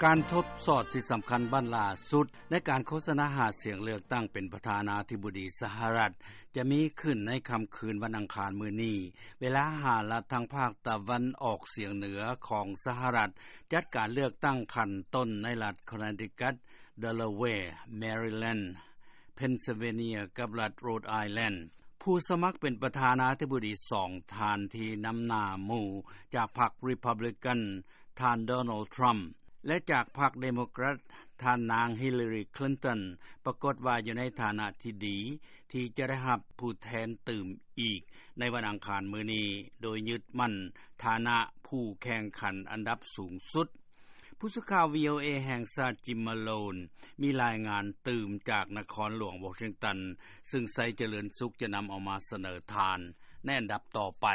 ການທົດສອບທີ່ສຳຄັນບັ້ນລ່າສຸດ ໃນການໂຄສະນາຫາສຽງເລືອກຕັ້ງເປັນປະທານາທິບໍດີສະຫະລັດ ຈະມີຂຶ້ນໃນຄ່ຳຄືນວັນອັງຄານມື້ນີ້ ເວລາຫ້າລັດທາງພາກຕາເວັນອອກສຽງເໜືອຂອງສະຫະລັດ ຈັດການເລືອກຕັ້ງຂັ້ນຕົ້ນໃນລັດ Connecticut, Delaware, Maryland, Pennsylvania ກັບລັດ Rhode Island. ຜູ້ສະໝັກເປັນປະທານາທິບໍດີສອງທ່ານທີ່ນຳໜ້າໝູ່ຈາກພັກ Republican ທ່ານ Donald Trump ແລະ ຈາກພັກ Democrat ທ່ານນາງ Hillary Clinton ປາກົດວ່າຢູ່ໃນຖານະທີ່ດີ ທີ່ຈະໄດ້ຮັບຜູ້ແທນຕື່ມອີກໃນວັນອັງຄານມື້ນີ້ ໂດຍຍຶດໝັ້ນຖານະຜູ້ແຂ່ງຂັນອັນດັບສູງສຸດ. ຜູ້ສື່ຂ່າວ VOA ແຫ່ງຊາດ Jim Malone ມີລາຍງານຕື່ມຈາກນະຄອນຫຼວງ Washington ຊຶ່ງໄຊຈະເລີນສຸກຈະນຳເອົາມາສະເໜີທ່ານໃນອັນດັບຕໍ່ໄປ.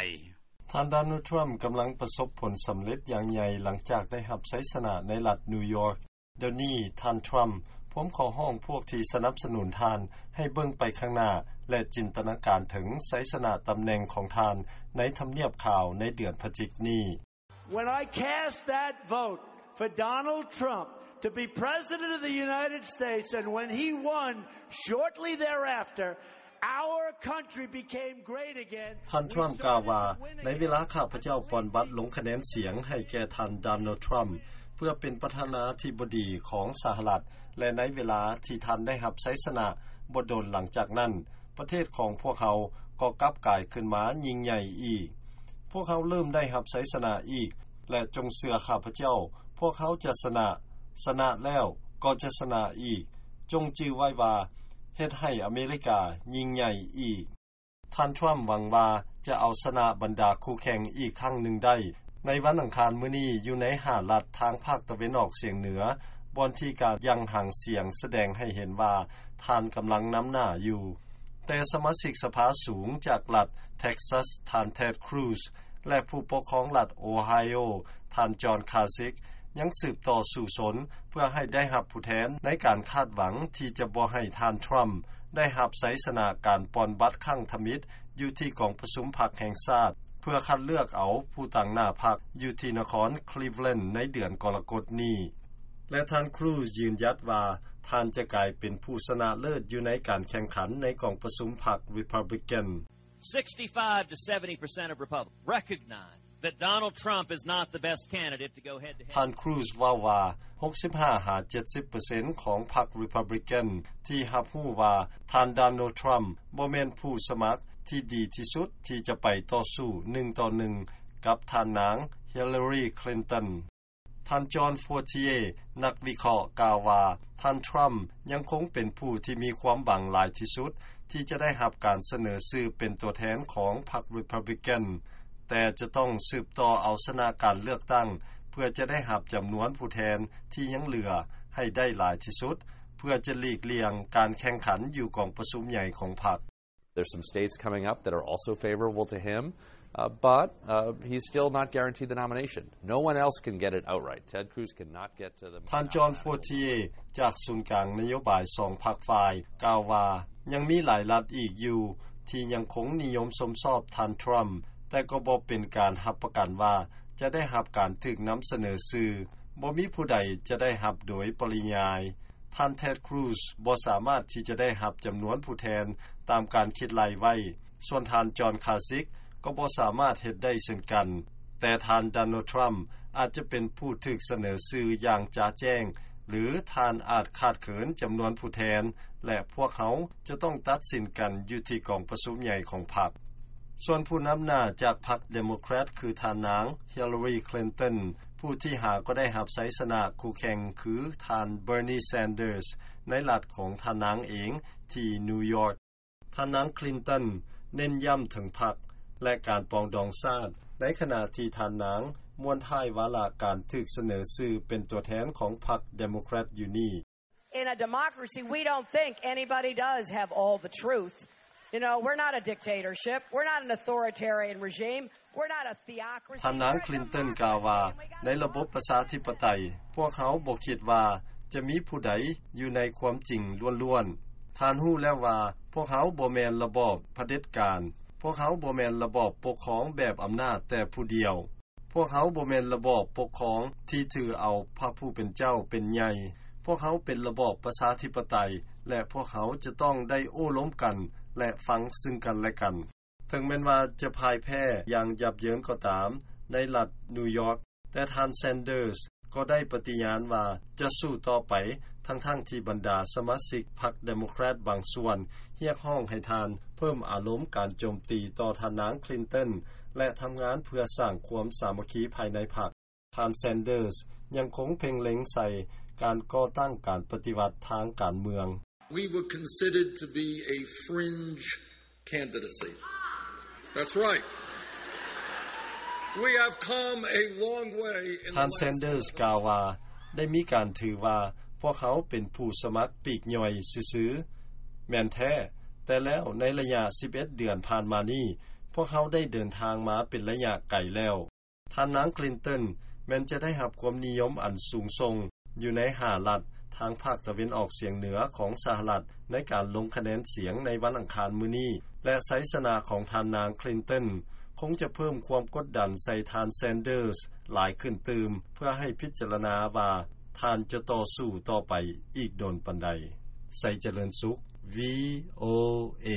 ທ່ານ Donald Trump ກຳລັງປະສົບຜົນສຳເລັດຢ່າງໃຫຍ່ ຫຼັງຈາກໄດ້ຮັບໄຊຊະນະໃນລັດ New York. ດຽວນີ້ ທ່ານ Trump ພວມຂໍຮ້ອງພວກທີ່ສະໜັບສະໜູນທ່ານໃຫ້ເບິ່ງໄປຂ້າງໜ້າ ແລະ ຈິນຕະນາການເຖິງໄຊຊະນະຕຳແໜ່ງຂອງທ່ານໃນທຳນຽບຂາວໃນເດືອນພະຈິກນີ້. When I cast that vote for Donald Trump to be President of the United States, and when he won shortly thereafter, our country became great again. ທ່ານ Trump ກ່າວວ່າ, ໃນເວລາຂ້າພະເຈົ້າປ່ອນບັດລົງຄະແນນສຽງໃຫ້ແກ່ທ່ານ Donald Trump ເພື່ອເປັນປະທານາທິບໍດີຂອງສະຫະລັດ ແລະ ໃນເວລາທີ່ທ່ານໄດ້ຮັບໄຊຊະນະ, ບໍ່ດົນຫຼັງຈາກນັ້ນ, ປະເທດຂອງພວກເຮົາກໍກັບກາຍຂຶ້ນມາຍິ່ງໃຫຍ່ອີກ. ພວກເຮົາເລີ່ມໄດ້ຮັບໄຊຊະນະອີກ ແລະ ຈົ່ງເຊື່ອຂ້າພະເຈົ້າ, ພວກເຮົາຈະຊະນະ, ຊະນະແລ້ວກໍຈະຊະນະອີກ. ຈົ່ງຈື່ໄວ້ວ່າ ເຮັດໃຫ້ອາເມລິກາຍິ່ງໃຫຍ່ອີກ. ທ່ານ Trump ຫວັງວ່າຈະເອົາຊະນະບັນດາຄູ່ແຂ່ງອີກຄັ້ງໜຶ່ງໄດ້. ໃນວັນອັງຄານມື້ນີ້, ຢູ່ໃນຫ້າລັດທາງພາກຕາເວັນອອກສຽງເໜືອ, ບ່ອນທີ່ການຢ່າງຫາງສຽງສະແດງໃຫ້ເຫັນວ່າທ່ານກຳລັງນຳໜ້າຢູ່. ແຕ່ສະມາຊິກສະພາສູງຈາກລັດ Texas ທ່ານ Ted Cruz ແລະ ຜູ້ປົກຄອງລັດ Ohio ທ່ານ John Kasich ຍັງສືບຕໍ່ສູ້ຊົນເພື່ອໃຫ້ໄດ້ຮັບຜູ້ແທນໃນການຄາດຫວັງທີ່ຈະບໍ່ໃຫ້ທ່ານ Trump ໄດ້ຮັບໄຊຊະນະການປ່ອນບັດຄັ້ງທຳອິດຢູ່ທີ່ກອງປະຊຸມພັກແຫ່ງຊາດ ເພື່ອຄັດເລືອກເອົາຜູ້ຕາງໜ້າພັກຢູ່ທີ່ນະຄອນ Cleveland ໃນເດືອນກໍລະກົດນີ້ ແລະ ທ່ານ Cruz ຢືນຢັດວ່າທ່ານຈະກາຍເປັນຜູ້ຊະນະເລີດຢູ່ໃນການແຂ່ງຂັນໃນກອງປະຊຸມພັກ Republican. Sixty-five to seventy percent of Republicans recognize that Donald Trump is not the best candidate to go head to head. ທ່ານ Cruz ເວົ້າວ່າ ຫົກສິບຫ້າຫາເຈັດສິບເປີເຊັນຂອງພັກ Republican ທີ່ຮັບຮູ້ວ່າທ່ານ Donald Trump ບໍ່ແມ່ນຜູ້ສະໝັກທີ່ດີທີ່ສຸດທີ່ຈະໄປຕໍ່ສູ້ໜຶ່ງຕໍ່ໜຶ່ງກັບທ່ານນາງ Hillary Clinton. ທ່ານ John Fortier ນັກວິເຄາະກ່າວວ່າ ທ່ານ Trump ຍັງຄົງເປັນຜູ້ທີ່ມີຄວາມຫວັງຫຼາຍທີ່ສຸດ ທີ່ຈະໄດ້ຮັບການສະເໜີຊື່ເປັນຕົວແທນຂອງພັກ Republican ແຕ່ຈະຕ້ອງສືບຕໍ່ເອົາຊະນະການເລືອກຕັ້ງ ເພື່ອຈະໄດ້ຮັບຈຳນວນຜູ້ແທນທີ່ຍັງເຫຼືອໃຫ້ໄດ້ຫຼາຍທີ່ສຸດ ເພື່ອຈະຫຼີກລ່ຽງການແຂ່ງຂັນຢູ່ກອງປະຊຸມໃຫຍ່ຂອງພັກ. There's some states coming up that are also favorable to him, uh, but, uh, he's still not guaranteed the nomination. No one else can get it outright. Ted Cruz cannot get to the ທ່ານ John Fortier ຈາກສູນກາງນະໂຍບາຍສອງພັກຝ່າຍ ກ່າວວ່າ ຍັງມີຫຼາຍລັດອີກຢູ່ທີ່ຍັງຄົງນິຍົມຊົມຊອບທ່ານ Trump ແຕ່ກໍບໍ່ເປັນການຮັບປະກັນວ່າຈະໄດ້ຮັບການຖືກນຳສະເໜີຊື່. ບໍ່ມີຜູ້ໃດຈະໄດ້ຮັບໂດຍປະລິຍາຍ. ທ່ານ Ted Cruz ບໍ່ສາມາດທີ່ຈະໄດ້ຮັບຈຳນວນຜູ້ແທນຕາມການຄິດໄລ່ໄວ້, ສ່ວນທ່ານ John Kasich ກໍບໍ່ສາມາດເຮັດໄດ້ເຊັ່ນກັນ. ແຕ່ທ່ານ Donald Trump ອາດຈະເປັນຜູ້ຖືກສະເໜີຊື່ຢ່າງຈະແຈ້ງ ຫຼື ທ່ານອາດຂາດເຂີນຈຳນວນຜູ້ແທນ ແລະ ພວກເຮົາຈະຕ້ອງຕັດສິນກັນຢູ່ທີ່ກອງປະຊຸມໃຫຍ່ຂອງພັກ. ສ່ວນຜູ້ນຳໜ້າຈາກພັກ Democrat ຄືທ່ານນາງ Hillary Clinton, ຜູ້ທີ່ຫາກໍໄດ້ຮັບໄຊຊະນະຄູ່ແຂ່ງຄືທ່ານ Bernie Sanders ໃນລັດຂອງທ່ານນາງເອງທີ່ New York. ທ່ານນາງ Clinton ເນັ້ນຢ້ຳເຖິງພັກ ແລະ ການປອງດອງຊາດ, ໃນຂະນະທີ່ທ່ານນາງມ້ວນທ້າຍວາລະການຖືກສະເໜີຊື່ເປັນຕົວແທນຂອງພັກ Democrat ຢູ່ນີ້. In a democracy, we don't think anybody does have all the truth. You know, we're not a dictatorship. We're not an authoritarian regime. We're not a theocracy. ທ່ານນາງ Clinton ກ່າວວ່າ ໃນລະບົບປະຊາທິປະໄຕ, ພວກເຮົາບໍ່ຄິດວ່າຈະມີຜູ້ໃດຢູ່ໃນຄວາມຈິງລ້ວນໆ. ທ່ານຮູ້ແລ້ວວ່າ ພວກເຮົາບໍ່ແມ່ນລະບອບຜະເດັດການ. ພວກເຮົາບໍ່ແມ່ນລະບອບປົກຄອງແບບອຳນາດແຕ່ຜູ້ດຽວ. ພວກເຮົາບໍ່ແມ່ນລະບອບປົກຄອງທີ່ຖືເອົາພະຜູ້ເປັນເຈົ້າເປັນໃຫຍ່. ພວກເຮົາເປັນລະບອບປະຊາທິປະໄຕ ແລະ ພວກເຮົາຈະຕ້ອງໄດ້ໂອ້ລົມກັນ ແລະ ຟັງຊຶ່ງກັນແລະກັນ. ເຖິງແມ່ນວ່າຈະພ່າຍແພ້ຢ່າງຫຍາບເຍີນກໍຕາມໃນລັດນິວຢອກ, ແຕ່ທ່ານ Sanders ກໍໄດ້ປະຕິຍານວ່າຈະສູ້ຕໍ່ໄປ, ທັງໆທີ່ບັນດາສະມາຊິກພັກ Democrat ບາງສ່ວນຮຽກຮ້ອງໃຫ້ທ່ານເພີ່ມອາລົມການໂຈມຕີຕໍ່ທ່ານນາງ Clinton ແລະ ທຳງານເພື່ອສ້າງຄວາມສາມັກຄີພາຍໃນພັກ. ທ່ານ Sanders ຍັງຄົງເພັ່ງເລັງໃສ່ການກໍ່ຕັ້ງການປະຕິວັດທາງການເມືອງ. We were considered to be a fringe candidacy. That's right. We have come a long way in the last ທ່ານ Sanders ກ່າວວ່າ ໄດ້ມີການຖືວ່າພວກເຮົາເປັນຜູ້ສະໝັກປີກຍ່ອຍຊື່ໆ. ແມ່ນແທ້, ແຕ່ແລ້ວໃນໄລຍະສິບເອັດເດືອນຜ່ານມານີ້, ພວກເຮົາໄດ້ເດີນທາງມາເປັນໄລຍະໄກແລ້ວ. ທ່ານນາງ Clinton ແມ່ນຈະໄດ້ຮັບຄວາມນິຍົມອັນສູງສົ່ງຢູ່ໃນຫ້າລັດທາງພາກຕາເວັນອອກສຽງເໜືອຂອງສະຫະລັດ ໃນການລົງຄະແນນສຽງໃນວັນອັງຄານມື້ນີ້ ແລະ ໄຊຊະນະຂອງທ່ານນາງ Clinton ຄົງຈະເພີ່ມຄວາມກົດດັນໃສ່ທ່ານ Sanders ຫຼາຍຂຶ້ນຕື່ມ ເພື່ອໃຫ້ພິຈາລະນາວ່າທ່ານຈະຕໍ່ສູ້ຕໍ່ໄປອີກດົນປານໃດ. ໄຊຈະເລີນສຸກ VOA.